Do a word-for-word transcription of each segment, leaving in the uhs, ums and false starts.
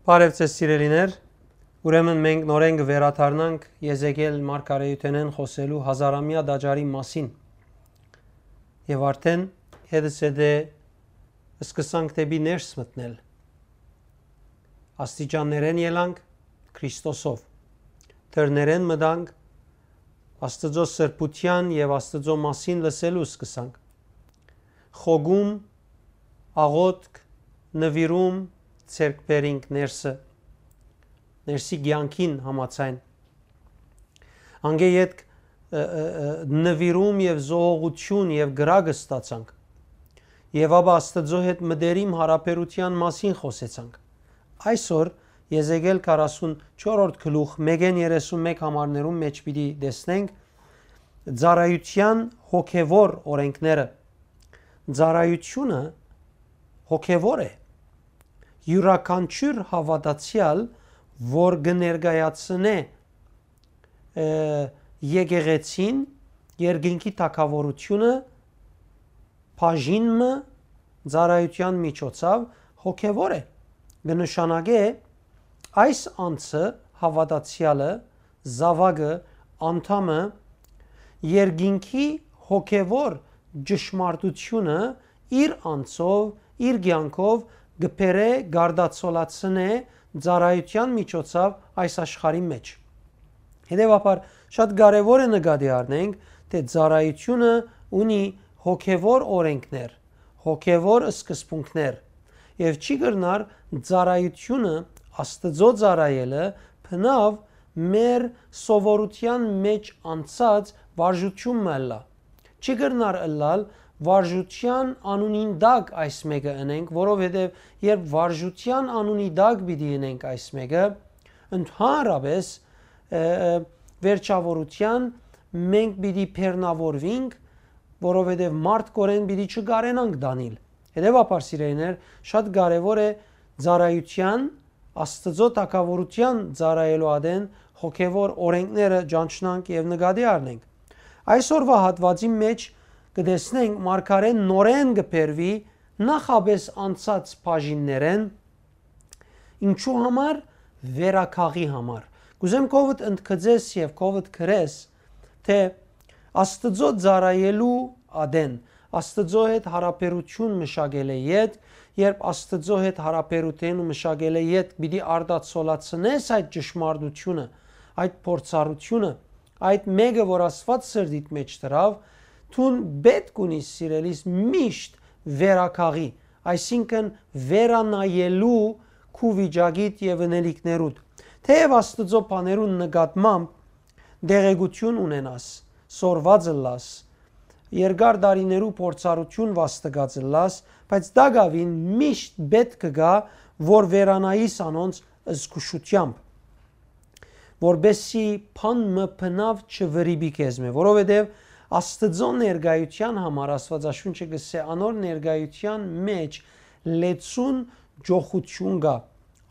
Բարև ձեզ, սիրելիներ։ Ուրեմն մենք նորէն կը վերադառնանք Եզեկիել մարգարեութենէն խօսելու հազարամեայ տաճարի մասին։ Եւ արդեն հետս հետը սկսանք դէպի ներս մտնել։ Աստիճաններէն ելանք Քրիստոսով։ Դռներէն մտանք, Աստուծոյ սրբութեան եւ Աստուծոյ մասին լսելու սկսանք։ Խոգում, աղօթք, նուիրում, ձեռք բերինք ներսը, ներսի կեանքին համաձայն։ Անկէ ետք, ը, ը, ը, նուիրում եւ զոհողութիւն եւ կրակ ստացանք։ Եւ ապա Աստուծոյ հետ մտերիմ յարաբերութեան մասին խօսեցանք։ Այսօր Եզեկիել քառասունչորրորդ գլուխ մէկէն երեսունմէկ համարներուն մէջ պիտի տեսնենք ծառայութեան հոգեվոր օրենքները։ Ծառայութիւնը հոգեվոր է։ Իւրաքանչիւր հաւատացեալ, որ կը ներկայացնէ, ը, եկեղեցին, երկինքի թագաւորութիւնը, բաժին մը, ծառայութեան միջոցաւ հոգեվոր է։ Կը նշանակէ այս անձը, հաւատացեալը, զաւակը, անդամը, երկինքի հոգեվոր ճշմարտութիւնը իր անձով, իր կեանքով կը բերէ, կարտացոլացնէ ծառայութեան միջոցաւ այս աշխարհի մէջ։ Հետեւաբար, շատ կարեւոր է նկատի առնենք, թէ ծառայութիւնը ունի հոգեվոր օրենքներ, հոգեվոր սկզբունքներ, եւ չի կրնար ծառայութիւնը, Աստուծոյ ծառայելը, բնաւ մեր սովորութեան մէջ անցած վարժութիւն մը ըլլայ։ Չի կրնար ըլլալ վարժութեան անունին տակ այս մէկը ընենք, որովհետեւ երբ վարժութեան անունի տակ պիտի ընենք այս մէկը, ընդհանրապէս, ը, ը, վերջաւորութեան մենք պիտի բեռնաւորուինք, որովհետեւ մարդկօրէն պիտի չկարենանք տանիլ։ Հետեւաբար, սիրելիներ, շատ կարեւոր է ծառայութեան, Աստուծոյ թագաւորութեան ծառայելու ատեն հոգեվոր օրենքները ճանչնանք եւ նկատի առնենք։ Այսօրվա հատուածին մէջ կը տեսնենք մարգարէն նորէն կը բերուի նախապէս անցած բաժիններէն, ինչու համար, վերագաղի համար։ Կ'ուզեմ քովդ ընդգծես եւ քովդ գրես, թէ Աստուծոյ ծառայելու ատեն, Աստուծոյ հետ յարաբերութիւն մշակելէ յետ, երբ Աստուծոյ հետ յարաբերութիւն մշակելէ յետ պիտի արտացոլացնես այդ ճշմարտութիւնը, այդ փորձառութիւնը, այդ մէկը, որ Աստուած սրտիդ մէջ դրաւ, դուն պէտք ունիս, սիրելիս, միշտ վերագաղի, այսինքն վերանայելու քու վիճակիդ եւ ընելիքներուդ։ Թէեւ Աստուծոյ բաներուն նկատմամբ տեղեկութիւն ունենաս, սորված ըլլաս, երկար տարիներու փորձառութիւն վաստակած ըլլաս, բայց տակաւին միշտ պէտք կը գայ, որ վերանայիս անոնց զգուշութեամբ, որպեսզի բան մը բնաւ չվրիպի քեզմէ, որովհետեւ Աստուծոյ ներկայութեան համար Աստուածաշունչը կ'ըսէ, անոր ներկայութեան մէջ լեցուն ճոխութիւն կայ,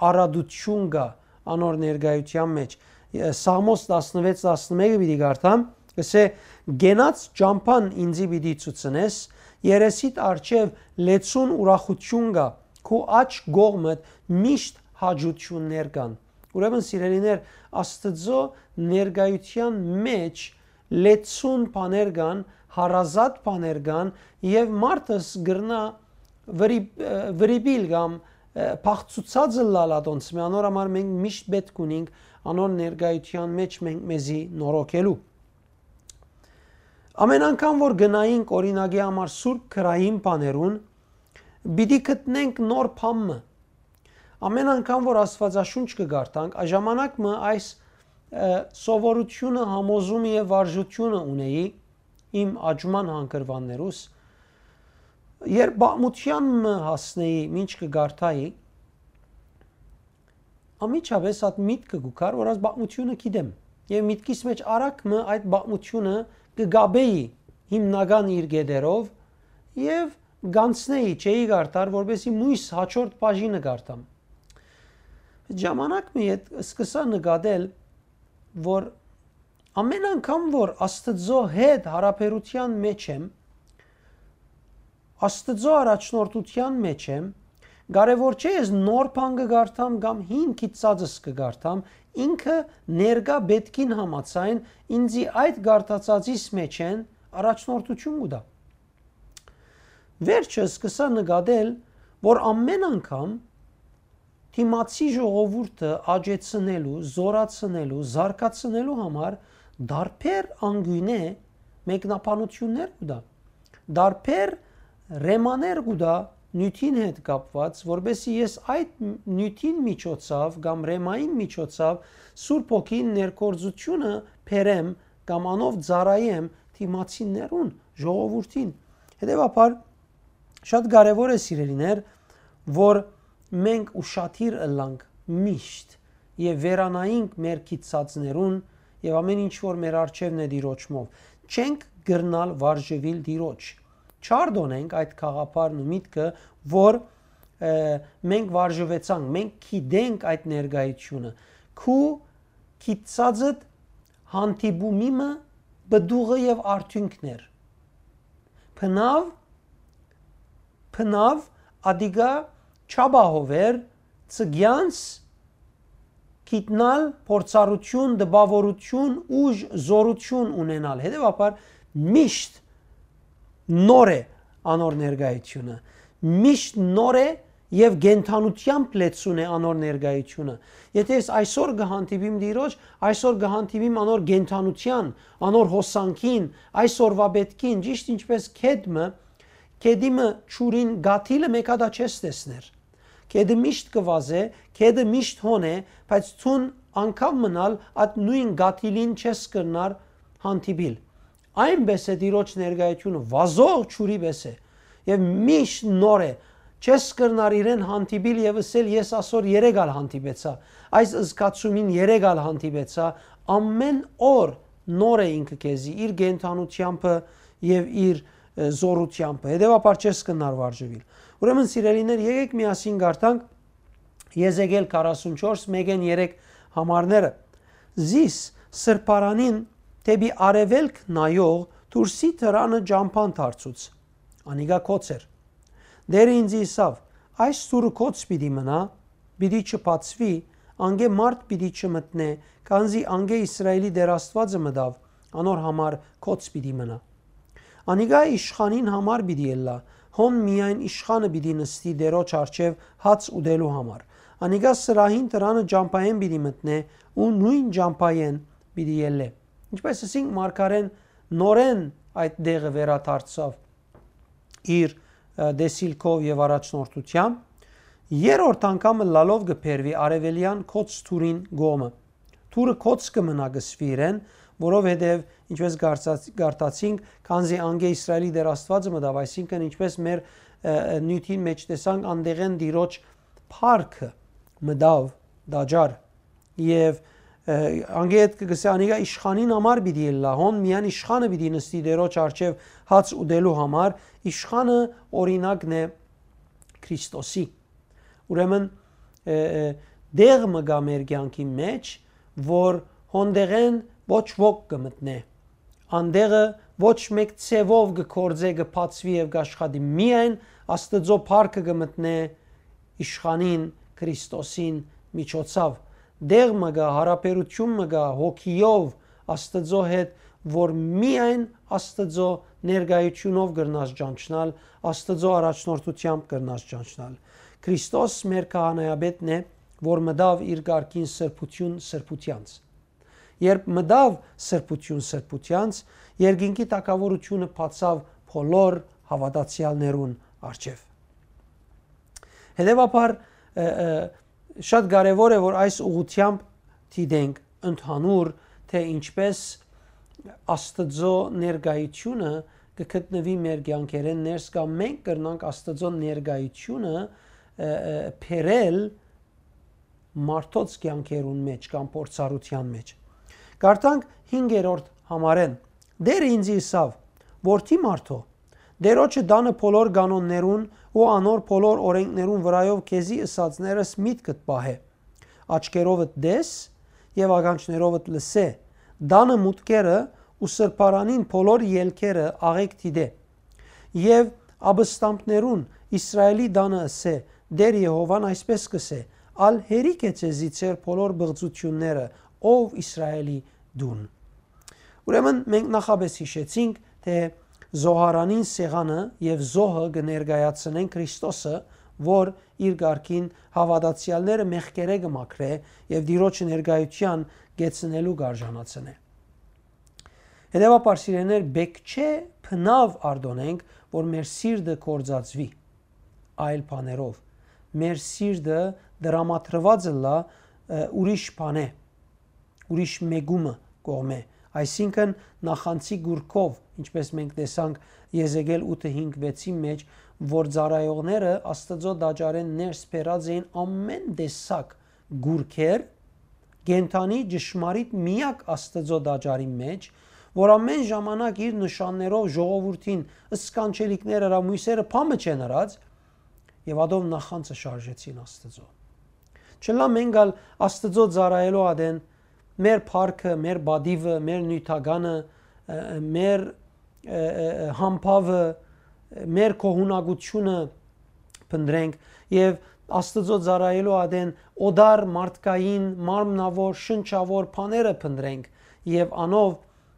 արատութիւն կայ անոր ներկայութեան մէջ։ Ը, Սաղմոս տասնվեց տասնմէկը պիտի կարդամ, կ'ըսէ. «Կենաց ճամբան ինծի պիտի ցուցնես, երեսիդ առջեւ լեցուն ուրախութիւն կայ, քու աջ կողմդ միշտ հաճութիւններ կան»։ Ուրեմն, սիրելիներ, Աստուծոյ ներկայութեան մէջ լեցուն բաներ կան, հարազատ բաներ կան, եւ մարդս կրնայ վրի-, ը, վրիպիլ կամ, ը, փախցուցած ըլլալ ատոնցմէ, անոր համար մենք միշտ պէտք ունինք անոր ներկայութեան մէջ մենք մեզի նորոգելու։ Ամեն անգամ որ գնայինք, օրինակի համար, սուրբ գրային բաներուն, պիտի գտնենք նոր բան մը։ Ամեն անգամ որ Աստուածաշունչ կը կարդանք, ա ժամանակ մը այս, ը, սովորութիւնը, համոզումը եւ վարժութիւնը ունեի իմ աճման հանգրուաններուս, երբ պատմութեան մը հասնէի, ինչ կը կարդայի, անմիջապէս այդ միտքը կու գար, որ այս պատմութիւնը գիտեմ։ Եւ միտքիս մէջ արագ մը այդ պատմութիւնը կը կապէի հիմնական իր կետերով եւ կանցնէի, չէի կարդար, որպեսզի մոյս հաջորդ բաժինը կարդամ։ Ժամանակ մը յետ սկսա նկատել, որ ամեն անգամ որ Աստուծոյ հետ յարաբերութեան մէջ եմ, Աստուծոյ առաջնորդութեան մէջ եմ, Կարեւոր չէ ես նոր բան կը կարդամ կամ հին գիտցածս կը կարդամ, ինքը ներկայ պէտքին համաձայն ինծի այդ կարդացածիս մէջէն առաջնորդութիւն կու տայ։ Վերջը սկսայ նկատել, որ ամէն անգամ դիմացի ժողովուրդը աճեցնելու, զօրացնելու, զարգացնելու համար տարբեր անկիւնէ մեկնաբանութիւններ կու տայ, տարբեր ռեմաներ կու տայ նիւթին հետ կապուած, որպէսզի ես այդ նիւթին միջոցաւ կամ ռեմային միջոցաւ Սուրբ Հոգին ներգործութիւնը բերեմ կամ անով ծառայեմ դիմացիներուն, ժողովուրդին։ Հետեւաբար, շատ կարեւոր է, սիրելիներ, որ մենք ուշադիր ըլլանք միշտ եւ վերանայինք մեր գիտցածներուն եւ ամէն ինչ որ մեր առջեւն է Տիրոջմով։ Չենք կրնալ վարժուիլ Տիրոջ։ Չարդոնենք այդ գաղափարն ու միտքը, որ, ը, մենք վարժուեցանք, մենք գիտենք այդ ներկայությունը։ Քու գիտցածդ հանդիպումի մը պտուղը եւ արդիւնքն էր։ Բնաւ, բնաւ ատիկա չապահովեր ցկեանց գիտնալ, փորձառութիւն, տպաւորութիւն, ուժ, զօրութիւն ունենալ։ Հետեւաբար միշտ նոր է անոր ներկայությունը, միշտ նոր է եւ կենդանութեամբ լեցուն է անոր ներկայությունը։ Եթե ես այսօր կը հանդիպիմ Տիրոջ, այսօր կը հանդիպիմ անոր կենդանութեան, անոր հոսանքին, այսօրվա պէտքին, ճիշտ ինչպէս գետ մը, գետի մը ջուրին կաթիլը մէկ հատա չես տեսներ։ Գետը միշտ կը վազէ, գետը միշտ հոն է, բայց դուն անգամ մնալ այդ նոյն կաթիլին չես կրնար հանդիպիլ։ Այնպէս է Տիրոջ ներկայությունը, վազող ջուրի պէս է եւ միշտ նոր է։ Չես կրնար իրեն հանդիպիլ եւ ըսել, «Ես ասոր երեկ ալ հանդիպեցայ, այս զգացումին երեկ ալ հանդիպեցայ»։ Ամէն օր նոր է ինքը քեզի, իր կենդանութեամբը եւ իր, ը, զօրութեամբը։ Հետեւաբար չես կրնար վարժուիլ։ Ուրեմն, սիրելիներ, եկեք միասին կարդանք Եզեկիել քառասունչորս, մէկէն երեք համարները։ Զիս սրբարանին դէպի արեւելք նայող դուրսի դրանը ճամբան դարձուց։ Անիկա գոց էր։ Տէրը ինծի ըսաւ. «Այս դուռը գոց պիտի մնայ, պիտի չբացուի, անկէ մարդ պիտի չմտնէ, քանզի անկէ Իսրայէլի Տէր Աստուածը մտաւ, անոր համար գոց պիտի մնայ»։ Անիկա իշխանին համար պիտի ըլլայ, հոն միայն իշխանը պիտի նստի Տէրոջ առջեւ հաց ուտելու համար։ Անիկա սրահին դրանը ճամբայէն պիտի մտնէ ու նոյն ճամբայէն պիտի ելլէ։ Ինչպէս ըսինք, մարգարէն նորէն այդ տեղը վերադարձաւ իր, ը, տեսիլքով եւ առաջնորդութեամբ, երրորդ անգամ ըլլալով կը բերուի արեւելեան գոց դուռին կողմը։ Դուռը գոց կը մնայ կսուի իրեն, որովհետեւ, ինչպէս կարդաց-, կարդացինք, քանզի անկէ Իսրայէլի Տէր Աստուածը մտաւ, այսինքն, ինչպէս մեր, ը, ը, նիւթին մէջ տեսանք, անտեղէն Տիրոջ փառքը մտաւ տաճար եւ, ը, անկէ հետ կը գսէ, անիկա իշխանին համար պիտի ըլլայ, հոն միայն իշխանը պիտի նստի Տէրոջ առջեւ հաց ուտելու համար, իշխանը օրինակն է Քրիստոսի։ Ուրեմն, ը, ը, տեղ մը կայ մեր կեանքի մէջ, որ հոնդեղէն ոչ ոք կը մտնէ։ Անտեղը ոչ մէկ ձեւով կը գործէ, կը բացուի եւ կ'աշխատի։ Միայն Աստուծոյ փառքը կը մտնէ իշխանին, Քրիստոսին միջոցաւ։ Տեղ մը կայ, յարաբերութիւն մը կայ հոգիով Աստուծոյ հետ, որ միայն Աստուծոյ ներկայութիւնով կրնաս ճանչնալ, Աստուծոյ առաջնորդութեամբ կրնաս ճանչնալ։ Քրիստոս մեր քահանայապետն է, որ մտաւ իր կարգին սրբութիւն սրբութեանց։ Երբ մտաւ սրբութիւն սրբութեանց, երկինքի թագաւորութիւնը բացաւ բոլոր հաւատացեալներուն առջեւ։ Հետեւաբար, ը, ը, շատ կարեւոր է, որ այս ուղղութեամբ դիտենք ընդհանուր, թէ ինչպէս Աստուծոյ ներկայութիւնը կը գտնուի մեր կեանքերէն ներս, կամ մենք կրնանք Աստուծոյ ներկայութիւնը, ը, ը, բերել մարդոց կեանքերուն մէջ կամ փորձառութեան մէջ։ Կարդանք հինգերորդ համարէն. «Տէրը ինծի ըսաւ. "Որդի մարդոյ, Տէրոջը տանը բոլոր կանոններուն ու անոր բոլոր օրէնքներուն վրայով քեզի ըսածներս միտքդ պահէ, աչքերովդ տես եւ ականջներովդ լսէ, տանը մուտքերը ու սրբարանին բոլոր ելքերը աղէկ դիտէ։ Եւ ապստամբներուն Իսրայէլի տանը ըսէ. Տէր Եհովան այսպէս կ'ըսէ. «Ալ հերիք է ձեզի ձեր բոլոր բղծութիւնները, ով Իսրայէլի դուն»։ Ուրեմն մենք նախապէս յիշեցինք, թէ զոհարանին սեղանը եւ զոհը կը ներկայացնեն Քրիստոսը, որ իր կարգին հաւատացեալները մեղքերէ կը մաքրէ եւ Տիրոջ ներկայութեան կեցնելու կ'արժանացնէ։ Հետեւաբար, սիրելիներ, պէտք չէ բնաւ արտօնենք, որ մեր սիրտը կործածուի այլ բաներով։ Մեր սիրտը դրամատրուած ըլլայ, ը, ուրիշ բանէ, ուրիշ մեկումը կողմէ, այսինքն նախանձի գուրքով, ինչպէս մենք տեսանք Եզեկիել ութը հինգ վեցին մէջ, որ ծառայողները Աստուծոյ տաճարէն ներս բերած էին ամէն տեսակ գուրքեր, կենդանի ճշմարիտ միակ Աստուծոյ տաճարին մէջ, որ ամէն ժամանակ իր նշաններով ժողովուրդին սքանչելիքներ ըրաւ, մոյսերը փամը չեն ըրած, եւ ատով նախանձը շարժեցին Աստուծոյ։ Չլայ մենք ալ Աստուծոյ ծառայելու ատեն մեր փառքը, մեր պատիւը, մեր նիւթականը, ը, ը, մեր, ը, ը, ը, համբաւը, մեր գոհունակութիւնը փնտռենք եւ Աստուծոյ ծառայելու ատեն օտար մարդկային, մարմնաւոր, շնչաւոր բաները փնտռենք եւ անով,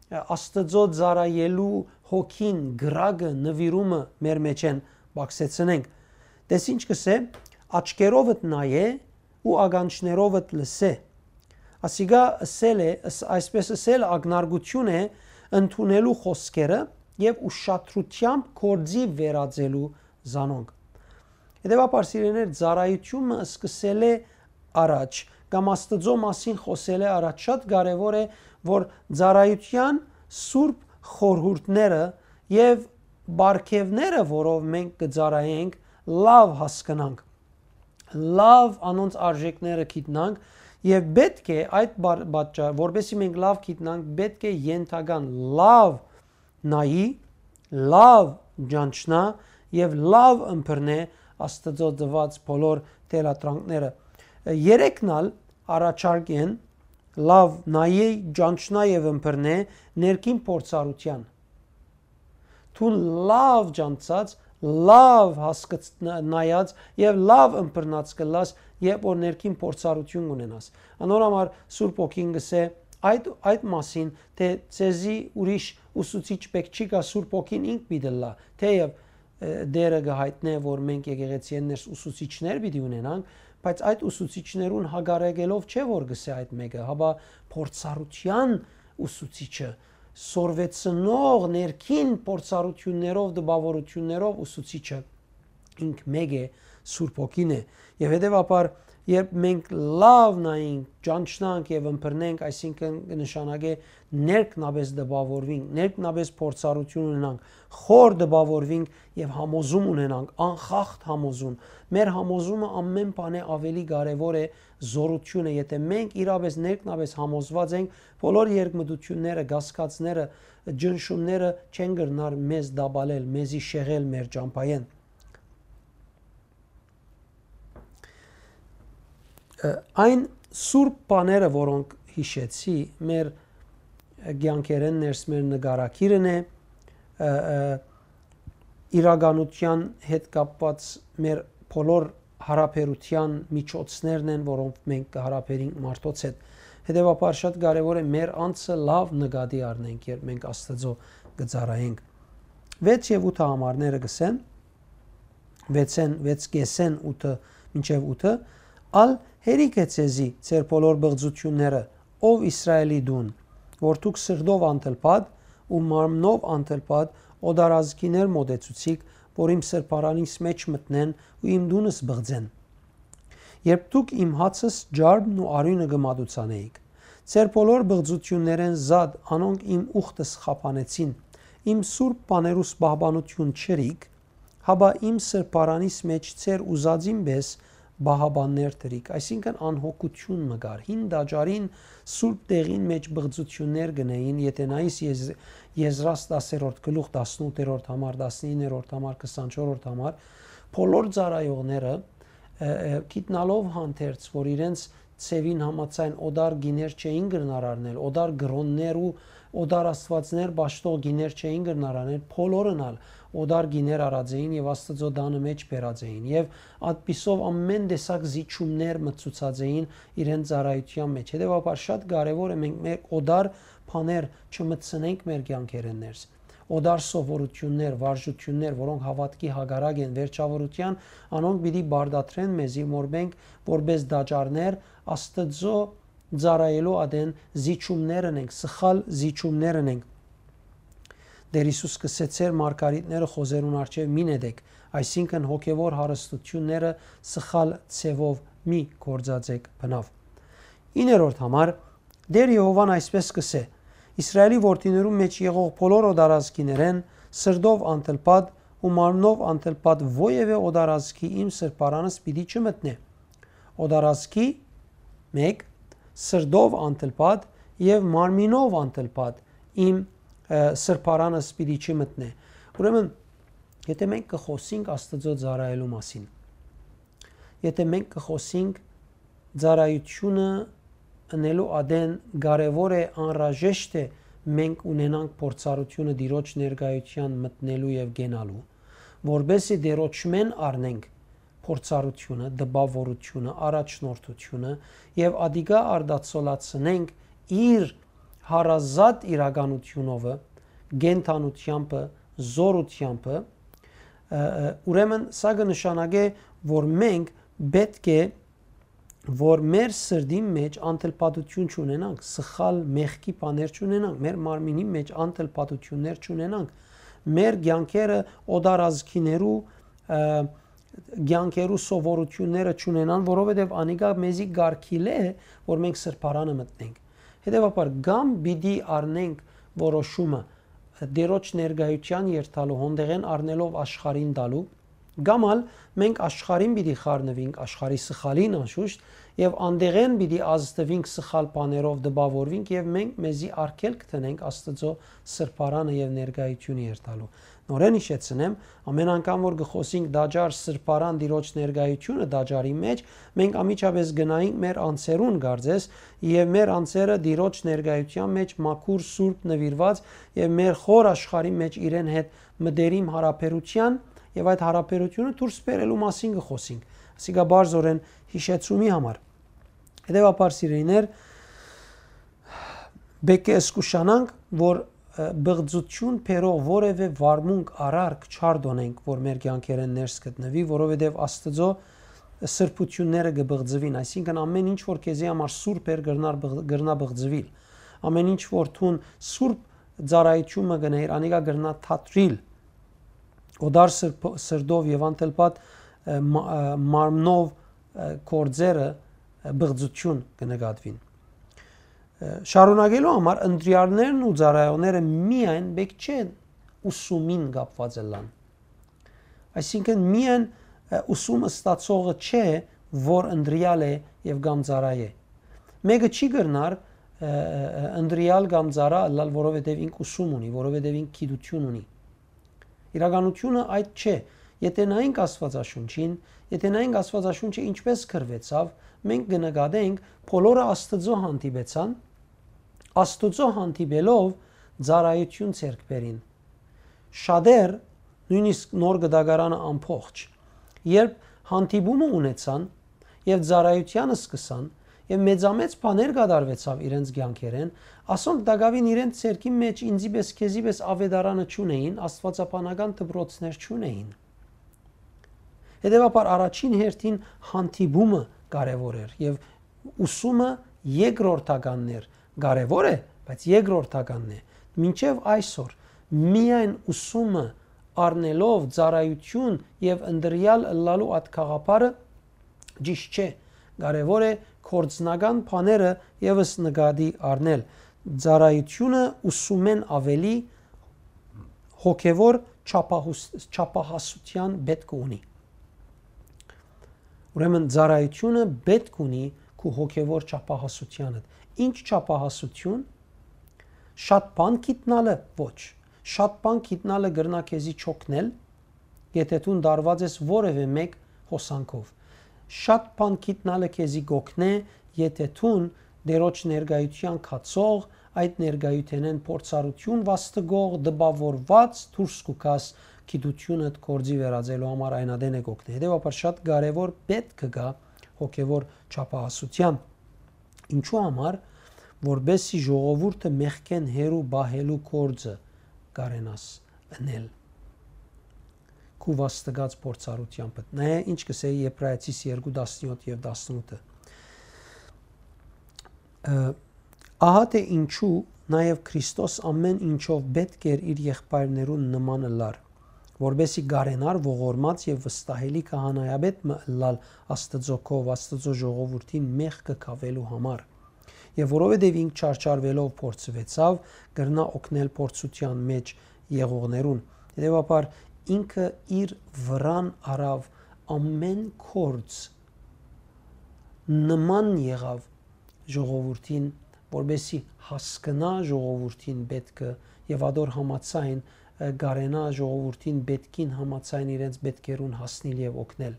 ը, Աստուծոյ ծառայելու հոգին, կրակը, նուիրումը մեր մէջէն պակսեցնենք։ Տես ինչ կ'ըսէ. «Աչքերովդ նայէ ու ականջներովդ լսէ»։ Ասիկա ըսել է, ըս-, այսպէս ըսել ակնարկութիւն է ընդունելու խօսքերը եւ ուշադրութեամբ գործի վերածելու զանոնք։ Հետեւաբար, սիրելիներ, ծառայութիւնը սկսելէ առաջ կամ Աստուծոյ մասին խօսելէ առաջ շատ կարեւոր է, որ ծառայութեան սուրբ խորհուրդները եւ պարգեւները, որով մենք կը ծառայենք, լաւ հասկնանք, լաւ անոնց արժեքները գիտնանք եւ պէտք է այդ բար-, պատճառ, որպեսզի մենք լաւ գիտնանք, պէտք է ենթական լաւ նայի, լաւ ճանչնայ եւ լաւ ըմբռնէ Աստուծոյ տուած բոլոր թելադրանքները։ Երեքն ալ առաջարկ են. լաւ նայի, ճանչնայ եւ ըմբռնէ ներքին փորձառութեան։ Դուն լաւ ճանչցած, լաւ հասկց-, ն-, նայած եւ լաւ ըմբռնած կ'ըլլաս, երբ որ ներքին փորձառութիւն կ'ունենաս։ Անոր համար Սուրբ Հոգին կ'ըսէ այդ, այդ մասին, թէ ձեզի ուրիշ ուսուցիչ պէտք չի գայ, Սուրբ Հոգին ինք պիտի ըլլայ, թէեւ, ը, Տէրը կը յայտնէ, որ մենք եկեղեցիէն ներս ուսուցիչներ պիտի ունենանք, բայց այդ ուսուցիչներուն հակառակելով չէ, որ կ'ըսէ այդ մէկը, հապա փորձառութեան ուսուցիչը, սորվեցնող ներքին փորձառութիւններով, տպաւորութիւններով ուսուցիչը ինք մէկ է, Սուրբ Հոգին է։ Եւ հետեւաբար, երբ մենք լաւ նայենք, ճանչնանք եւ ըմբռնենք, այսինքն կը նշանակէ ներքնապէս տպաւորվենք, ներքնապէս փորձառութիւն ունենանք, խոր տպաւորվենք եւ համոզում ունենանք, անխախտ համոզում։ Մեր համոզումը ամէն բանէ աւելի կարեւոր է զօրութիւնը, եթէ մենք իրապէս ներքնապէս համոզված ենք, բոլոր երկմտութիւնները, կասկածները, ճնշումները չեն կրնար մեզ տապալել, մեզի շեղել մեր ճամբայէն։ Ը, այն սուրբ բաները, որոնք յիշեցի, մեր կեանքերէն ներս մեր նկարագիրն է, ը, ը, իրականութեան հետ կապված մեր բոլոր յարաբերութեան միջոցներն են, որոնք մենք կը յարաբերենք մարդոց հետ։ Հետեւաբար շատ կարեւոր է մեր անձը լաւ նկատի առնենք, երբ մենք Աստուծոյ կը ծառայենք։ Վեց եւ ութը համարները կ'ըսեն, վեցեն, վեց կէսէն ութը մինչեւ ութը, ալ հերիք է ձեզի ձեր բոլոր բղծութիւնները, ով Իսրայէլի դուն, որ դուք սրտով անդլպատ ու մարմնով անդլպատ օտարազգիներ մօտեցուցիք, որ իմ սրբարանիս մէջ մտնեն ու իմ տունս բղծեն։ Երբ դուք իմ հացս, ջարդն ու արիւնը կը մատուցանէիք, ձեր բոլոր բղծութիւններէն զատ անոնք իմ ուխտս խափանեցին, իմ սուրբ բաներուս պահպանութիւն չըրիք, հապա իմ սրբարանիս մէջ ձեր ուզածին պէս պահապաններ դրիք, այսինքն անհոգութիւն մը կար։ Հին տաճարին սուրբ տեղին մէջ բղծութիւններ կ'ընէին, եթէ նայիս Եզ-, Եզրաս տասերորդ գլուխ, տասնութերորդ համար, տասնիններորդ համար, քսանչորրորդ համար, բոլոր ծառայողները, ը, ը, գիտնալով հանդերձ, որ իրենց ձեւին համաձայն օտար գիներ չէին կրնար առնել, օտար կրօններ ու օտար աստուածներ պաշտող գիներ չէին կրնար առնել, բոլորն ալ օտար կիներ առած էին եւ Աստուծոյ տանը մէջ բերած էին եւ այդպիսով ամէն տեսակ զիջումներ մտցուցած էին իրենց ծառայութեան մէջ։ Հետեւաբար շատ կարեւոր է մենք մեր օտար բաներ չմտցնենք մեր կեանքերէն ներս։ Օտար սովորութիւններ, վարժութիւններ, որոնք հաւատքի հակառակ են վերջաւորութեան, անոնք պիտի պարտադրեն մեզի, որ մենք որպէս տաճարներ Աստուծոյ ծառայելու ատեն զիջումներ ընենք, սխալ զիջումներ ընենք։ Տէր Յիսուս կ'ըսէ. «Ձեր մարգարիտները խոզերուն առջեւ մի նետեք», այսինքն հոգեւոր հարստութիւնները սխալ ձեւով մի գործածեք բնաւ։ Իններորդ համար, Տէր Եհովան այսպէս կ'ըսէ. «Իսրայէլի որդիներուն մէջ եղող բոլոր օտարազգիներէն, սրտով անտլպատ ու մարմնով անտլպատ, ովեւէ օտարազգի իմ սրբարանս պիտի չմտնէ»։ Օտարազգի, մէկ, սրտով անտլպատ եւ մարմինով անտլպատ իմ, ը, սրբարանս պիտի չմտնէ։ Ուրեմն, եթե մենք կը խօսենք Աստուծոյ ծառայելու մասին, եթե մենք կը խօսենք ծառայութիւնը ընելու ատեն, կարեւոր է, անհրաժեշտ է մենք ունենանք փորձառութիւնը Տիրոջ ներկայութեան մտնելու եւ կենալու, որպէս զի Տիրոջմէն առնենք փորձառութիւնը, տպաւորութիւնը, առաջնորդութիւնը եւ ատիկա արտացոլացնենք իր հարազատ իրականութիւնովը, կենդանութեամբը, զօրութեամբը, ը, ը, ուրեմն սա կը նշանակէ, որ մենք պէտք է, որ մեր սրտին մէջ անտլպատութիւն չունենանք, սխալ մեղքի բաներ չունենանք, մեր մարմինին մէջ անտլպատութիւններ չունենանք, մեր կեանքերը օտարազգիներու, ը, կեանքերու սովորութիւնները չունենան, որովհետեւ անիկա մեզի կարգիլ է, որ մենք սրբարանը մտնենք։ Հետեւաբար, կամ պիտի առնենք որոշումը Տիրոջ ներկայութեան երթալու, հոնդեղէն առնելով աշխարհին տալու, կամ ալ մենք աշխարհին պիտի խառնուինք, աշխարհի սխալին անշուշտ, եւ անդեղէն պիտի ազդուինք, սխալ բաներով տպաւորուինք եւ մենք մեզի արգելք դնենք Աստուծոյ սրբարանը եւ ներկայութիւնը երթալու։ Նորէն յիշեցնեմ, ամէն անգամ որ կը խօսենք տաճար, սրբարան, Տիրոջ ներկայութիւնը տաճարի մէջ, մենք անմիջապէս գնայինք մեր անձերուն կարծես, եւ մեր անձերը Տիրոջ ներկայութեան մէջ մաքուր, սուրբ, նուիրուած եւ մեր խոր աշխարհի մէջ իրեն հետ մտերիմ յարաբերութեան եւ այդ յարաբերութիւնը դուրս բերելու մասին կը խօսենք։ Ասիկա բարձորեն յիշեցումի համար։ Հետեւաբար, սիրելիներ, պէտք է զգուշանանք, որ, ը, բղծութիւն բերող որեւէ վարմունք, արարք չարտօնենք, որ մեր կեանքերէն ներս գտնուի, որովհետեւ Աստուծոյ սրբութիւնները կը բղծուին, այսինքն ամէն ինչ որ քեզի համար սուրբ էր, կրնար բղ-, կրնայ բղծուիլ։ Ամէն ինչ որ դուն սուրբ ծառայութիւնը կ'ընէիր, անիկա կրնայ թատրիլ։ Օտար սրբ-, սրտով եւ անտլպատ, ը, մա-, ը, մարմնով, ը, գործերը, ը, բղծութիւն կը նկատուին։ Ը, շարունակելու համար, ընտրյալներն ու ծառայողները միայն պէտք չէ ուսումին կապուած ըլլան։ Այսինքն, միայն, ը, ուսում ստացողը չէ, որ ընտրյալ է եւ կամ ծառայ է։ Մէկը չի կրնար, ը, ը, ը, ընտրյալ կամ ծառայ ըլլալ, որովհետեւ ինք ուսում ունի, որովհետեւ ինք գիտութիւն ունի։ Իրականութիւնը այդ չէ։ Եթե նայենք Աստուածաշունչին, եթե նայենք Աստուածաշունչը ինչպես գրուեցաւ, մենք կը նկատենք, բոլորը Աստուծոյ հանդիպեցան, Աստուծոյ հանդիպելով ծառայութիւն ձեռք բերին։ Շատեր, նոյնիսկ Նոր Կտակարանը ամբողջ, երբ հանդիպումը ունեցան եւ ծառայութեանը սկսան, եւ մեծամեծ բաներ կատարուեցաւ իրենց կեանքերէն, ասոնք տակաւին իրենց ձեռքին մէջ ինծի պէս, քեզի պէս աւետարանը չունէին, աստուածաբանական դպրոցներ չունէին։ Հետեւաբար, առաջին հերթին հանդիպումը կարեւոր էր եւ ուսումը երկրորդականն էր, կարեւոր է, բայց երկրորդականն է։ Մինչեւ այսօր միայն ուսումը առնելով ծառայութիւն եւ ընտրյալ ըլլալու այդ գաղափարը ճիշտ չէ։ Կարեւոր է գործնական բաները եւս նկատի առնել։ Ծառայութիւնը ուսումէն աւելի հոգեւոր չափահուս-, չափահասութեան պէտք ունի։ Ուրեմն, ծառայութիւնը պէտք ունի քու հոգեւոր չափահասութեանդ։ Ի՞նչ չափահասութիւն։ Շատ բան գիտնալը՝ ոչ։ Շատ բան գիտնալը կրնայ քեզի չօգնել, եթե դուն տարուած ես որեւէ մէկ հոսանքով։ Շատ բան գիտնալը քեզի կօգնէ, եթե դուն Տիրոջ ներկայութեան գացող, այդ ներկայութենէն փորձառութիւն վաստկող, տպաւորուած դուրս կու գաս գիտութիւնդ գործի վերածելու համար այն ատեն է կ'օգնի։ Հետեւաբար շատ կարեւոր պէտք կը գայ հոգեւոր չափահասութեան։ Ինչու համար, որպեսզի ժողովուրդը մեղքէն հեռու պահելու գործը կարենաս ընել քու վաստակած փորձառութեամբդ։ Նայէ ինչ կ'ըսէ Եբրայեցիս երկու տասնեօթ եւ տասնութը։ Ը, Ահա թէ ինչու նաեւ Քրիստոս ամէն ինչով պէտք էր իր եղբայրներուն նման ըլլար, որպեսզի կարենար ողորմած եւ վստահելի քահանայապետ մը ըլլալ Աստուծոյ, Աստուծոյ ժողովուրդին մեղքը քաւելու համար։ Եւ որովհետեւ ինք չարչարուելով փորձուեցաւ, կրնայ օգնել փորձութեան մէջ եղողներուն։ Հետեւաբար ինքը իր վրան առաւ ամէն գործ, նման եղաւ ժողովուրդին, որպեսզի հասկնայ ժողովուրդին պէտքը եւ ատոր համաձայն, ը, կարենայ ժողովուրդին պէտքին համաձայն իրենց պէտքերուն հասնիլ եւ օգնել։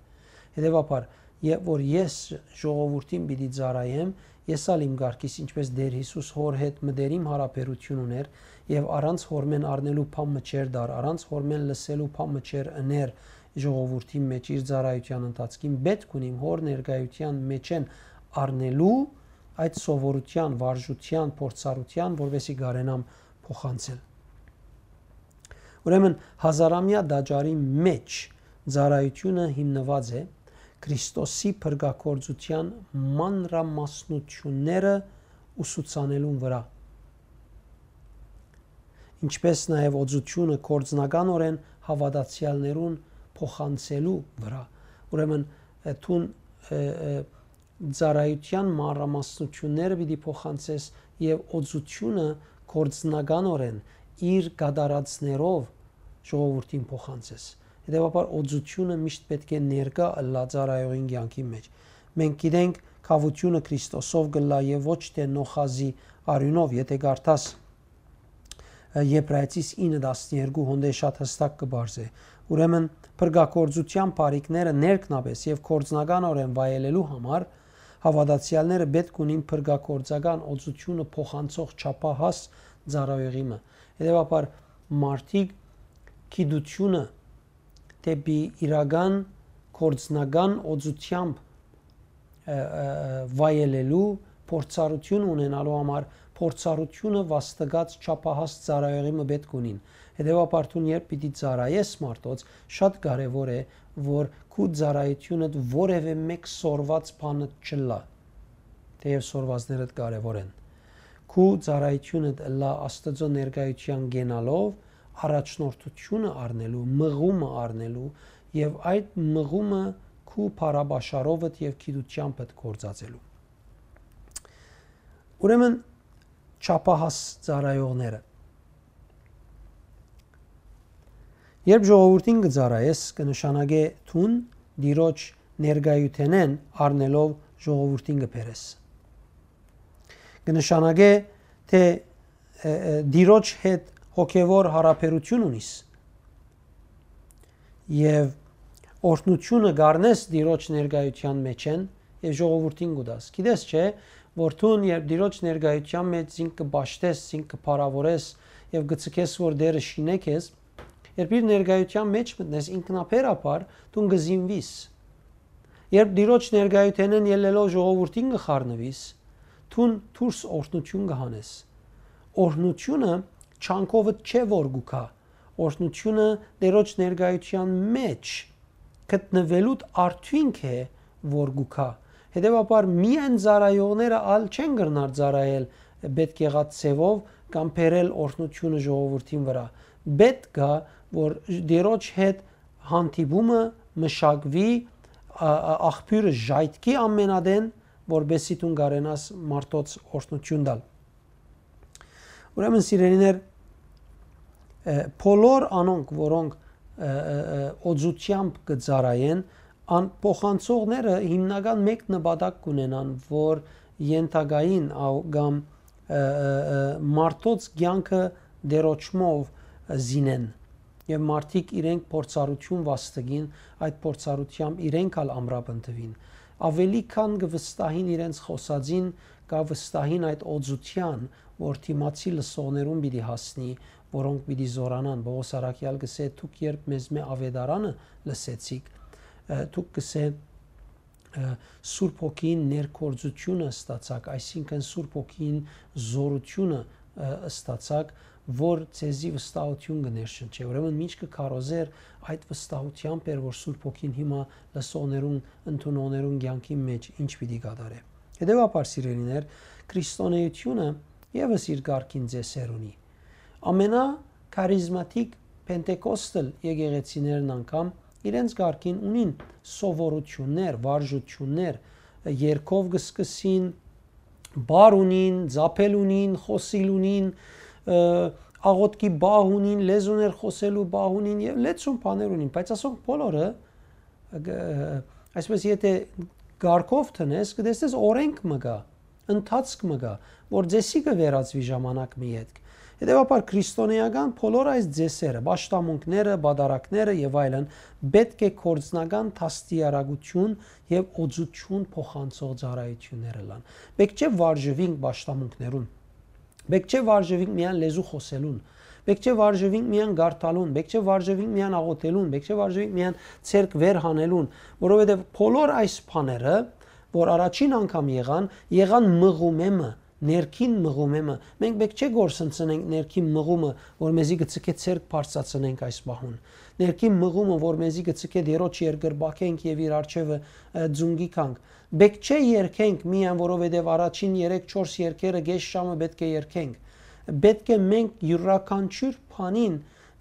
Հետեւաբար, երբ որ ես ժողովուրդին պիտի ծառայեմ, ես ալ իմ կարգիս, ինչպէս Տէր Յիսուս հօր հետ մտերիմ յարաբերութիւն ունէր եւ առանց հօրմէն առնելու բան մը չէր տար, առանց հօրմէն լսելու բան մը չէր ըներ ժողովուրդին մէջ իր ծառայութեան ընթացքին, պէտք ունիմ հօր ներկայութեան մէջէն առնելու այդ սովորութեան, վարժութեան, փորձառութեան, որպեսզի կարենամ փոխանցել։ Ուրեմն, հազարամեայ տաճարի մէջ ծառայութիւնը հիմնուած է Քրիստոսի փրկագործութեան մանրամասնութիւնները ուսուցանելուն վրայ, ինչպէս նաեւ օծութիւնը գործնականօրէն հաւատացեալներուն փոխանցելու վրայ։ Ուրեմն, ը, դուն, ը, ը, ծառայութեան մանրամասնութիւնները պիտի փոխանցես եւ օծութիւնը գործնականօրէն իր կատարածներով ժողովուրդին փոխանցես։ Հետեւաբար օծութիւնը միշտ պէտք է ներկայ ըլլայ ծառայողին կեանքին մէջ։ Մենք գիտենք, գաւութիւնը Քրիստոսով կ'ըլլայ եւ ոչ թէ նոխազի արիւնով, եթէ կարդաս, ը, Եբրայեցիս ինը տասներկու, հոն դէ շատ յստակ կը պարզէ։ Ուրեմն, փրկագործութեան բարիքները ներքնապէս եւ գործնականօրէն վայելելու համար հաւատացեալները պէտք ունին փրկագործական օծութիւնը փոխանցող չափահաս ծառայողի մը։ Հետեւաբար, մարդիկ գիտութիւնը դէպի իրական գործնական օծութեամբ, ը, ը, ը, վայելելու փորձառութիւն ունենալու համար փորձառութիւնը վաստակած չափահաս ծառայողի մը պէտք ունին։ Հետեւաբար, դուն երբ պիտի ծառայես մարդոց, շատ կարեւոր է, որ քու ծառայութիւնդ որեւէ մէկ սորված բանը չըլլայ, թէեւ սորվածներդ կարեւոր են։ Քու ծառայութիւնդ ըլլայ Աստուծոյ ներկայութեան կենալով, առաջնորդութիւնը առնելու, մղումը առնելու եւ այդ մղումը քու փառապաշարովդ եւ գիտութեամբդ գործածելու։ Ուրեմն, չափահաս ծառայողները։ Երբ ժողովուրդին կը ծառայես, կը նշանակէ դուն Տիրոջ ներկայութենէն առնելով ժողովուրդին կը բերես։ Կը նշանակէ թէ, ը, ը, Տիրոջ հետ հոգեւոր յարաբերութիւն ունիս եւ օրհնութիւնը կ'առնես Տիրոջ ներկայութեան մէջէն եւ ժողովուրդին կու տաս։ Գիտես չէ, որ դուն երբ Տիրոջ ներկայութեան մէջ զինք կը պաշտես, զինք կը փառաւորես եւ կը ցկես, որ Տէրը շինէ քեզ, երբ իր ներկայութեան մէջ մտնես, ինքնաբերաբար դուն կը զինուիս։ Երբ Տիրոջ ներկայութենէն ելլելով ժողովուրդին կը խառնուիս, դուն դուրս օրհնութիւն կը հանես։ Օրհնութիւնը չանքովդ չէ որ կու գայ, օրհնութիւնը Տիրոջ ներկայութեան մէջ գտնուելուդ արդիւնք է որ կու գայ։ Հետեւաբար, միայն ծառայողները ալ չեն կրնար ծառայել պէտք եղած ձեւով կամ բերել օրհնութիւնը ժողովուրդին վրայ։ Պէտք կայ, որ Տիրոջ հետ հանդիպումը մշակուի, ա, ա, աղբիւրը ժայթքի ամենատեն, որպեսզի դուն կարենաս մարդոց օրհնութիւն տալ։ Ուրեմն, սիրելիներ, ը, բոլոր անոնք, որոնք, ը, ը, ը, օծութեամբ կը ծառայեն, ան փոխանցողները հիմնական մէկ նպատակ կունենան, որ ենթակային ա-, կամ, ը, ը, ը, մարդոց կեանքը դերոճմով, ը, զինեն, եւ մարդիկ իրենք փորձառութիւն վաստակին, այդ փորձառութեամբ իրենք ալ ամրապնդուին։ Աւելի քան կը վստահին իրենց խօսածին, կը վստահին այդ օծութեան, որ դիմացի լսողներուն պիտի հասնի, որոնք պիտի զօրանան։ Պողոս առաքեալ կ'ըսէ. «Դուք երբ մեզմէ աւետարանը լսեցիք», ը, դուք կ'ըսէ, ը, Սուրբ Հոգին ներգործութիւնը ստացաք, այսինքն Սուրբ Հոգին զօրութիւնը, ը, ստացաք, որ ձեզի վստահութիւն կը ներշնչէ։ Ուրեմն մինչ կը քարոզէր, այդ վստահութեամբ էր, որ Սուրբ Հոգին հիմա լսողներուն, ընդունողներուն կեանքին մէջ ինչ պիտի կատարէ։ Հետեւաբար, սիրելիներ, քրիստոնէութիւնը եւս իր կարգին ծեսեր ունի։ Ամենաքարիզմատիկ Պենտեկոստալ եկեղեցիներն անգամ իրենց կարգին ունին սովորութիւններ, վարժութիւններ, երգով կը սկսին, բառ ունին, ծափել ունին, խօսիլ ունին, ը, աղօթքի բահ ունին, լեզուներ խօսելու բահ ունին եւ լեցուն բաներ ունին, բայց ասոնք բոլորը, ը, այսպես, եթե կարգով դնես, կտեսնես, օրենք մը կայ, ընթացք մը կայ, որ ծեսի կը վերածուի ժամանակ մը ետք։ Հետեւաբար, քրիստոնէական բոլոր այս ծեսերը, պաշտամունքները, պատարագները եւ այլն, պէտք է գործնական դաստիարակութիւն եւ օծութիւն փոխանցող ծառայութիւններ ըլլան։ Պէտք չէ վարժուինք պաշտամունքներուն։ Պէտք չէ վարժուինք միայն լեզու խօսելուն։ Պէտք չէ վարժուինք միայն կարդալուն, պէտք չէ վարժուինք միայն աղօթելուն, պէտք չէ վարժուինք միայն ձեռք վեր հանելուն, որովհետեւ բոլոր այս բաները, որ առաջին անգամ եղան, եղան մղումէ մը, ներքին մղումէ մը։ Մենք պէտք չէ գործընծնենք ներքին մղումը, որ մեզի կը ձգէ ձեռք բարձրացնենք այս պահուն։ Ներքին մղումը, որ մեզի կը ձգէ Տիրոջ երկրպագենք եւ իր առջեւը, ը, ձունկի գանք։ Պէտք չէ երգենք միայն, որովհետեւ առաջին երեք-չորս երգերը կէս ժամը պէտք է երգենք։ Պէտք է մենք իւրաքանչիւր բանին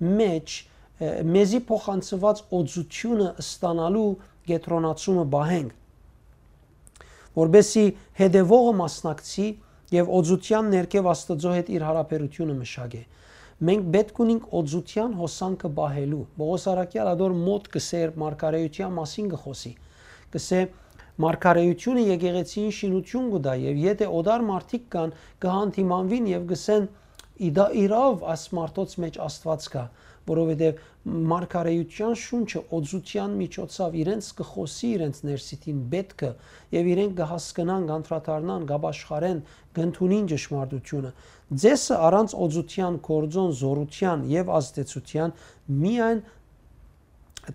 մէջ, ը, մեզի փոխանցուած օծութիւնը ստանալու կեդրոնացումը պահենք, որպէսզի հետեւողը մասնակցի եւ օծութեան ներքեւ Աստուծոյ հետ իր յարաբերութիւնը մշակէ։ Մենք պէտք ունենք օծութեան հոսանքը պահելու։ Պողոս առաքեալ ատոր մօտ կ'ըսէ, երբ մարգարէութեան մասին կը խօսի, կ'ըսէ. «Մարգարէութիւնը եկեղեցիին շինութիւն կու տայ, եւ եթէ օտար մարդիկ կան, կը հանդիմանուին եւ կ'ըսեն. "Ի դա իրաւ այս մարդոց մէջ Աստուած կայ", որովհետեւ մարգարէութեան շունչը օծութեան միջոցաւ իրենց կը խօսի իրենց ներսիդին պէտքը, եւ իրենք կը հասկնան, կ'անդրադառնան, կ'ապաշխարեն, կ'ընդունին ճշմարտութիւնը"։ Ձեսը առանց օծութեան, գործոն, զօրութեան եւ ազդեցութեան միայն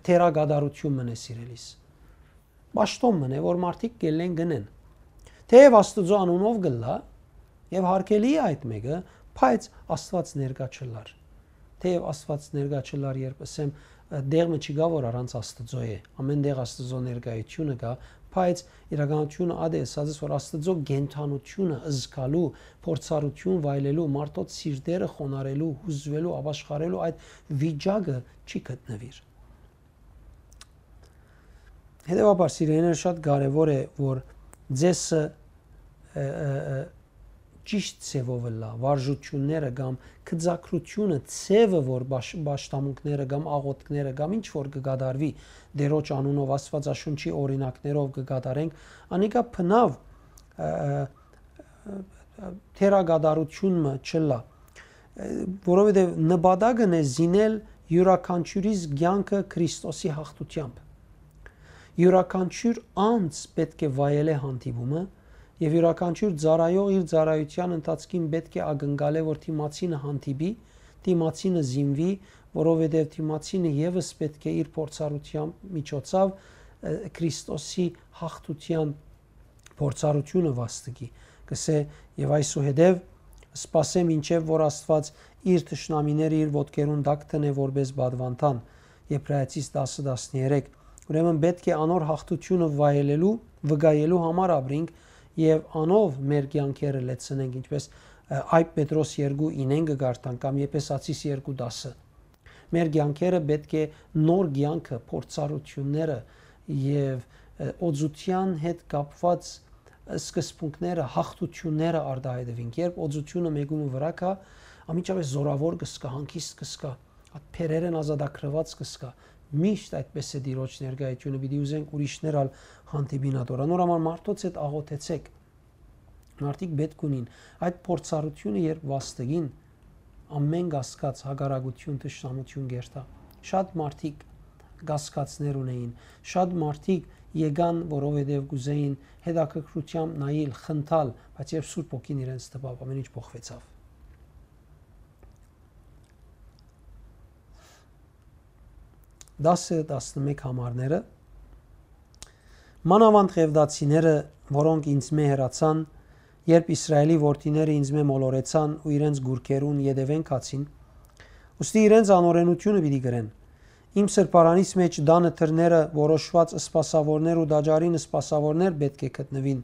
թերակատարութիւն մըն է, սիրելիս։ Պաշտօն մըն է, որ մարդիկ կ'ելլեն, կ'ընեն։ Թէեւ Աստուծոյ անունով կ'ըլլայ եւ յարգելի է այդ մէկը, բայց Աստուած ներկայ չ'ըլլար։ Թէեւ Աստուած ներկայ չ'ըլլար, երբ ըսեմ, ը, դեղ մը չկայ, որ առանց Աստուծոյ է։ Ամէն տեղ Աստուծոյ ներկայութիւնը կայ, բայց իրականութիւնը ատե ըսած ես, որ Աստուծոյ կենդանութիւնը զգալու, փորձառութիւն վայելելու, մարդոց սիրտերը խոնարհելու, յուզուելու, ապաշխարելու այդ վիճակը չի գտնուիր։ Հետեւաբար, սիրելիներ, շատ կարեւոր է, որ ձեսը, ը, ը, ը, ճիշտ ձեւով ըլլայ, վարժութիւնները կամ գծագրութիւնը, ձեւը, որ պաշ-, պաշտամունքները կամ աղօթքները կամ ինչ որ կը կատարուի Տիրոջ անունով, Աստուածաշունչի օրինակներով կը կատարենք, անիկա բնաւ, ը, ը, ը, թերակատարութիւն մը չ'ըլլայ, ը, որովհետեւ նպատակն է զինել իւրաքանչիւրիս կեանքը Քրիստոսի յաղթութեամբ։ Իւրաքանչիւր անձ պէտք է վայելէ հանդիպումը, եւ իւրաքանչիւր ծառայող իր ծառայութեան ընթացքին պէտք է ակնկալէ, որ դիմացինը հանդիպի, դիմացինը զինուի, որովհետեւ դիմացինը եւս պէտք է իր փորձառութեան միջոցով, ը, Քրիստոսի յաղթութեան փորձառութիւնը վաստակի, կ'ըսէ. "Եւ այսուհետեւ սպասեմ, մինչեւ որ Աստուած իր թշնամիները իր ոտքերուն տակ դնէ որպէս պատուանդան", Եբրայեցիս տասը տասներեք։ Ուրեմն պէտք է անոր յաղթութիւնը վայելելու, վկայելու համար ապրինք եւ անով մեր կեանքերը լեցնենք, ինչպես, ը, Այբ Պետրոս երկու ինեն կը կարդանք կամ Եփեսացիս երկու տասը։ Մեր կեանքերը պէտք է նոր կեանքը, փորձառութիւնները եւ, ը, օծութեան հետ կապուած սկզբունքները, յաղթութիւնները արտայայտուին։ Երբ օծութիւնը մէկու մը վրայ գայ, անմիջապէս զօրաւոր կը զգայ, հանգիստ կը զգայ, այդ բեռերէն ազատագրուած կը զգայ։ Միշտ այդպես է Տիրոջ ներկայութիւնը, պիտի ուզենք ուրիշներ ալ հանդիպին ատոր։ Անոր համար մարդոց հետ աղօթեցէք։ Մարդիկ պէտք ունին այդ փորձառութիւնը, երբ վաստակին ամէն կասկած, հակառակութիւն, թշնամութիւն կերթայ։ Շատ մարդիկ կասկածներ ունէին, շատ մարդիկ եկան, որովհետեւ կ'ուզէին հետաքրքրութեամբ նայիլ, խնդալ, բայց երբ Սուրբ Հոգին իրենց տպաւ, ամէն ինչ փոխուեցաւ։ Տասը, տասնմէկ համարները, մանաւանդ ղեւտացիները, որոնք ինձմէ հեռացան, երբ Իսրայէլի որդիները ինձմէ մոլորեցան ու իրենց գուրքերուն ետեւէն գացին, ուստի իրենց անօրէնութիւնը պիտի կրեն։ Իմ սրբարանիս մէջ տանը դռները որոշուած սպասաւորներ ու տաճարին սպասաւորներ պէտք է գտնուին,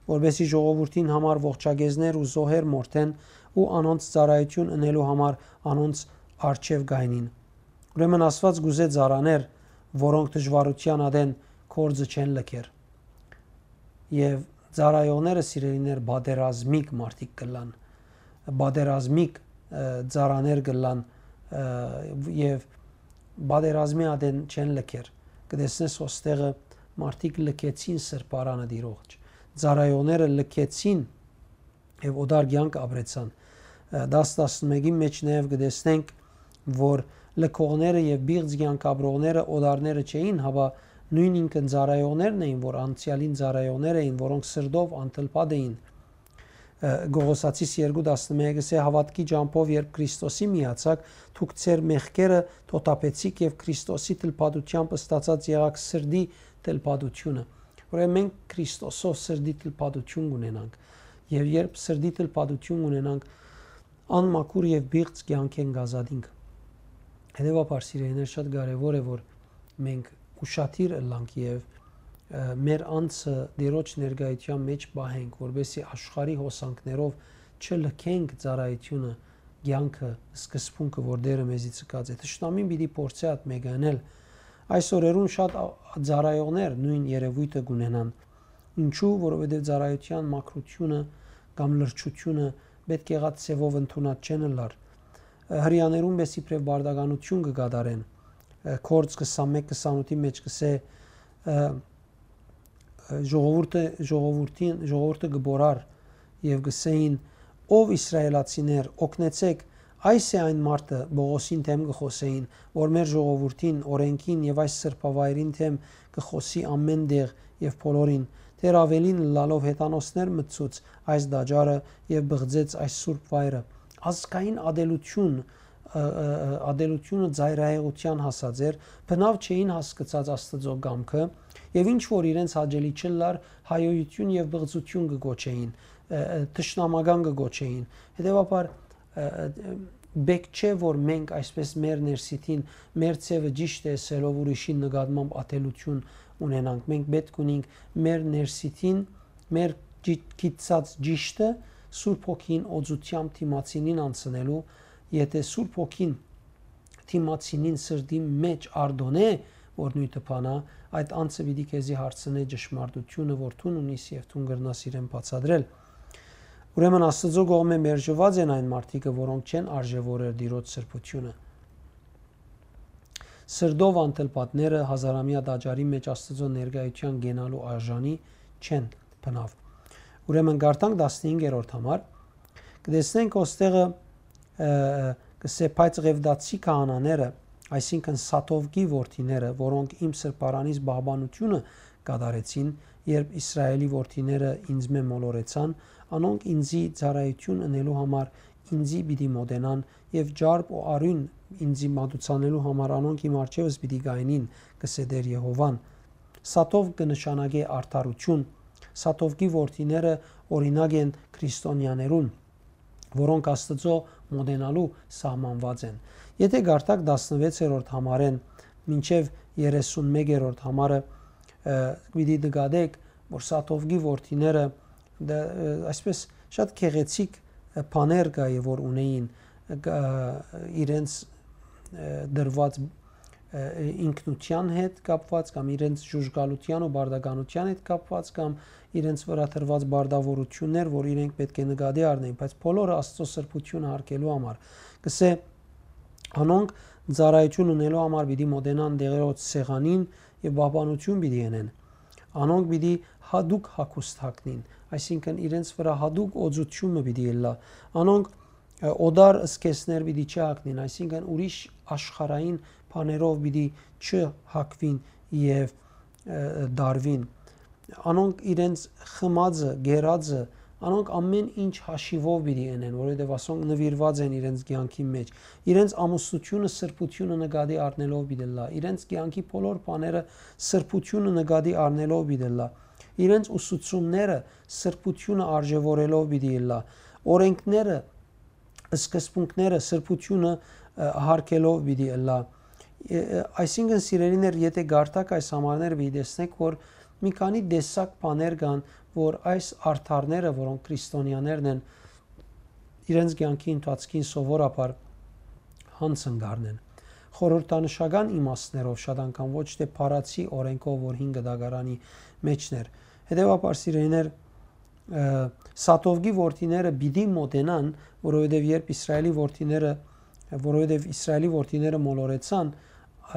որպէսզի ժողովուրդին համար ողջակեզներ ու զոհեր մորթեն ու անոնց ծառայութիւն ընելու համար անոնց առջեւ գայնին։ Ուրեմն Աստուած կ'ուզէ ծառաներ, որոնք դժուարութեան ատեն գործը չեն լքեր։ Եւ ծառայողները, սիրելիներ, պատերազմիկ մարդիկ կ'ըլլան, պատերազմիկ, ը, ծառաներ կ'ըլլան, ը, եւ պատերազմի ատեն չեն լքեր։ Կը տեսնես, ոստեղը մարդիկ լքեցին սրբարանը Տիրոջ, ծառայողները լքեցին եւ օտար կեանք ապրեցան։ Ը, տասը, տասնմէկին մէջ նաեւ կը տեսնենք, որ լքողները եւ պիղծ կեանք ապրողները օտարները չէին, հապա նոյն ինքն ծառայողներն էին, որ անցեալին ծառայողներ էին, որոնք սրտով անթլփատ էին։ Ը, Կողոսացիս երկու տասնմէկը կ'ըսէ. «Հաւատքի ճամբով երբ Քրիստոսի միացաք, դուք ձեր մեղքերը թոթափեցիք եւ Քրիստոսի թլփատութեամբ ստացած եղաք սրտի թլփատութիւնը»։ Ուրեմն մենք Քրիստոսով սրտի թլփատութիւն կ'ունենանք։ Եւ երբ սրտի թլփատութիւն ունենանք, անմաքուր եւ պիղծ կեանքէն կ'ազատինք։ Հետեւաբար, սիրելիներ, շատ կարեւոր է, որ մենք ուշադիր ըլլանք եւ, ը, մեր անձը Տիրոջ ներկայութեան մէջ պահենք, որպեսզի աշխարհի հոսանքներով չլքենք ծառայութիւնը, կեանքը, սկզբունքը, որ Տէրը մեզի ցկած է։ Թշնամին պիտի փորձէ այդ մէկը ընել։ Այս օրերուն շատ ա-, ծառայողներ նոյն երեւոյթը կ'ունենան։ Ինչու՞, որովհետեւ ծառայութեան մաքրութիւնը կամ լրջութիւնը պէտք եղած ձեւով ընդունած չեն ըլլար։ Ը, հրեաներուն պէս իբրեւ պարտականութիւն կը կատարեն, ը, Գործք քսանմէկ քսանութի մէջ կ'ըսէ, ը, ը, ժողովուրդը, ժողովուրդին, ժողովուրդը կը բորար եւ կ'ըսէին. «Ով Իսրայէլացիներ, օգնեցէք, այս է այն մարդը», Պողոսին դէմ կը խօսէին, «որ մեր ժողովուրդին, օրէնքին եւ այս սրբավայրին դէմ կը խօսի ամէն տեղ եւ բոլորին, դեռ աւելին ըլլալով հեթանոսներ մտցուց այս տաճարը եւ բղծեց այս սուրբ վայրը»։ Ազգային ատելութիւն, ը, ը, ը, ատելութիւնը ծայրահեղութեան հասած էր, բնաւ չէին հասկցած Աստուծոյ կամքը, եւ ինչ որ իրենց հաճելի չըլլար, հայոյութիւն եւ բղծութիւն կը կոչէին, ը, ը, թշնամական կը կոչէին։ Հետեւաբար, ը, ը, պէտք չէ, որ մենք այսպես մեր ներսիդին, մեր ձեւը ճիշդ է ըսելով, ուրիշին նկատմամբ ատելութիւն ունենանք։ Մենք պէտք ունենք մեր ներսիդին, մեր ճի-, գիտցած ճիշդը Սուրբ Հոգին օծութեամբ դիմացինին անցնելու, եթե Սուրբ Հոգին դիմացինին սրտին մէջ արտոնէ, որ նոյնը բանա, այդ անձը պիտի քեզի հարցնէ ճշմարտութիւնը, որ դուն ունիս եւ դուն կրնաս իրեն բացատրել։ Ուրեմն Աստուծոյ կողմէ մերժուած են այն մարդիկը, որոնք չեն արժեւորեր Տիրոջ սրբութիւնը։ Սրտով անթլփատները հազարամեայ տաճարի մէջ Աստուծոյ ներկայութեան կենալու արժանի չեն բնաւ։ Ուրեմն կարդանք տասնհինգերորդ համար, կտեսնենք ոստեղը, ը, կսե, բայց ղևտացի քահանաները, այսինքն Սադովկի որդիները, որոնք իմ սրբարանիս պահպանութիւնը կատարեցին, երբ Իսրայէլի որդիները ինձմէ մոլորեցան, անոնք ինձի ծառայութիւն ընելու համար ինձի պիտի մոտենան եւ ճարպ ու արիւն ինձի մատուցանելու համար անոնք իմ առջեւս պիտի գայնին, կսե Տէր Եհովան։ Սադովկ կը նշանակէ արդարութիւն, Սադովկի որդիները օրինակ են քրիստոնեաներուն, որոնք Աստուծոյ մոտենալու սահմանուած են։ Եթե կարդաք տասնվեցերորդ համարէն մինչեւ երեսունմեկերորդ համարը, ը, պիտի նկատեք, որ Սադովկի որդիները դա, ը, այսպես շատ գեղեցիկ, ը, բաներ կայ, որ ունեին, ը, կա-, իրենց, ը, դրուած, ը, ինքնութեան հետ կապուած կամ իրենց ժուժկալութեան ու պարտականութեան հետ կապուած կամ իրենց վրայ դրուած պարտաւորութիւններ, որ իրենք պէտք է նկատի առնեն, բայց բոլորը Աստուծոյ սրբութիւնը յարգելու համար։ Կսե, անոնք ծառայութիւն ունելու համար պիտի մոտենան Տէրոջ սեղանին եւ պահպանութիւն պիտի ընեն։ Անոնք պիտի յատուկ հագուստ հագնին, այսինքն իրենց վրայ յատուկ օծութիւնը պիտի ըլլայ։ Անոնք, ը, օտար զգեստներ պիտի չհագնին, այսինքն ուրիշ աշխարհային բաներով պիտի չհագուին եւ, ը, դարուին։ Անոնք իրենց խմածը, գերածը, Անոնք ամէն ինչ հաշիւով պիտի ընեն, որովհետեւ ասոնք նուիրուած են իրենց կեանքին մէջ։ Իրենց ամուսնութիւնը սրբութիւնը նկատի առնելով պիտի ըլլայ, իրենց կեանքի բոլոր բաները սրբութիւնը նկատի առնելով պիտի ըլլայ, իրենց ուսուցումները սրբութիւնը արժեւորելով պիտի ըլլայ, օրենքները, սկզբունքները սրբութիւնը, ը, հարգելով պիտի ըլլայ։ Ը, ը, այսինքն, սիրելիներ, եթէ կարդաք այս համարները, պիտի տեսնէք, որ մի քանի տեսակ բաներ կան, որ այս արդարները, որոնք քրիստոնեաներն են, իրենց կեանքի ընթացքին սովորաբար յանցն կ'առնեն։ Խորհրդանշական իմաստներով շատ անգամ, ոչ թէ փառացի օրենքով, որ հին կտակարանի մէջն էր։ Հետեւաբար, սիրելիներ, ը, Սադովկի որդիները պիտի մոտենան, որովհետեւ երբ Իսրայելի որդիները, որովհետեւ Իսրայելի որդիները մոլորեցան,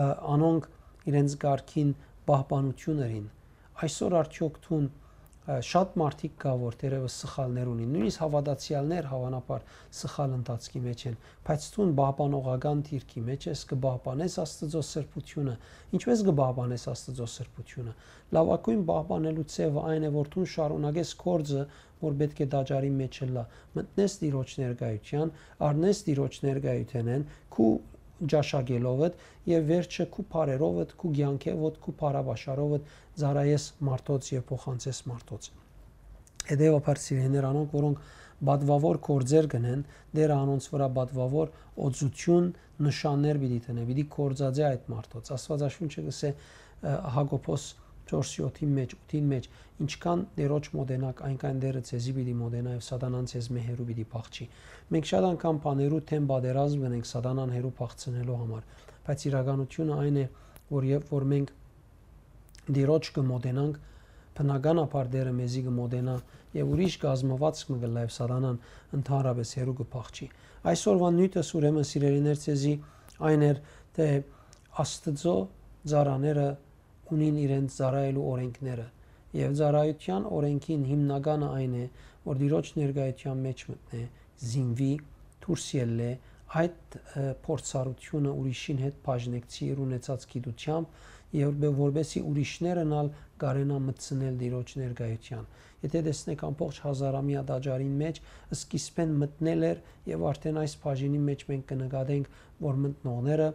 ը, անոնք իրենց կարգին պահպանութիւն ըրին։ Այսօր արդեօք դուն, ը, շատ մարդիկ կայ, որ թերեւս սխալներ ունին, նոյնիսկ հաւատացեալներ հաւանաբար սխալ ընթացքի մէջ են, բայց դուն պահպանողական դիրքի մէջ ես, կը պահպանես Աստուծոյ սրբութիւնը։ Ինչպէս կը պահպանես Աստուծոյ սրբութիւնը։ Լաւագոյն պահպանելու ձեւը այն է, որ դուն շարունակես գործը, որ պէտք է տաճարի մէջ ըլլայ, մտնես Տիրոջ ներկայութեան, առնես Տիրոջ ներկայութենէն, քու ճաշակելովդ եւ վերջը քու բարերովդ, քու կեանքեւդ, քու բարաբաշխարովդ ծառայես մարդոց եւ փոխանցես մարդոց։ Հետեւաբար, սիրելիներ, անոնք, որոնք պատուաւոր գործեր կ'ընեն, Տէրը անոնց վրայ պատուաւոր օծութիւն, նշաններ պիտի դնէ, պիտի գործածէ այդ մարդոց։ Աստուածաշունչը կ'ըսէ, ը, Յակոբոս չորս յոթին մէջ, ութին մէջ, ինչքան Տէրոջ մոտենաք, այնքան Տէրը ձեզի պիտի մոտենայ եւ Սատանան ձեզմէ հեռու պիտի փախչի։ Մենք շատ անգամ բաներու դէմ պատերազմ կ'ընենք Սատանան հեռու փախցնելու համար, բայց իրականութիւնը այն է, որ երբ որ մենք Տիրոջ կը մոտենանք, բնականաբար Տէրը մեզի կը մոտենայ եւ ուրիշ կազմուածք մը կ'ըլլայ եւ Սատանան ընդհանրապէս հեռու կը փախչի։ Այսօրուան նիւթս, ուրեմն, սիրելիներ, ձեզի այն էր, թէ Աստուծոյ ծառաները ունին իրենց ծառայելու օրենքները, եւ ծառայութեան օրենքին հիմնականը այն է, որ Տիրոջ ներկայութեան մէջ մտնէ, զինուի, դուրս ելլէ, այդ, ը, փորձառութիւնը ուրիշին հետ բաժնեկցի իր ունեցած գիտութեամբ, եւ որպէ-, որպէսզի ուրիշներն ալ կարենան մտցնել Տիրոջ ներկայութեան։ Եթէ տեսնենք, ամբողջ հազարամեայ տաճարին մէջ սկիզբէն մտնել էր, եւ արդէն այս բաժինին մէջ մենք կը նկատենք, որ մտնողները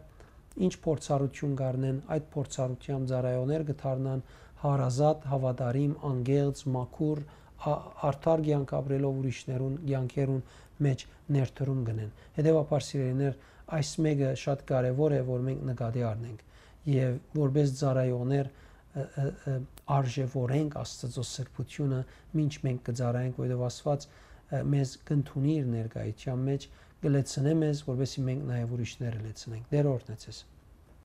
ինչ փորձառութիւն կ'առնեն, այդ փորձառութեան ծառայողներ կը դառնան հարազատ, հաւատարիմ, անկեղծ, մաքուր, ա-, արդար կեանք ապրելով ուրիշներուն կեանքերուն մէջ ներդրում կ'ընեն։ Հետեւաբար, սիրելիներ, այս մէկը շատ կարեւոր է, որ մենք նկատի առնենք եւ որպէս ծառայողներ, ը, ը, ը, արժեւորենք Աստուծոյ սրբութիւնը, մինչ մենք կը ծառայենք, որովհետեւ Աստուած, ը, մեզ կ'ընդունի իր ներկայութեան մէջ, կը լեցնէ մեզ, որպէսզի մենք նաեւ ուրիշները լեցնենք։ Տէրը օրհնեցես։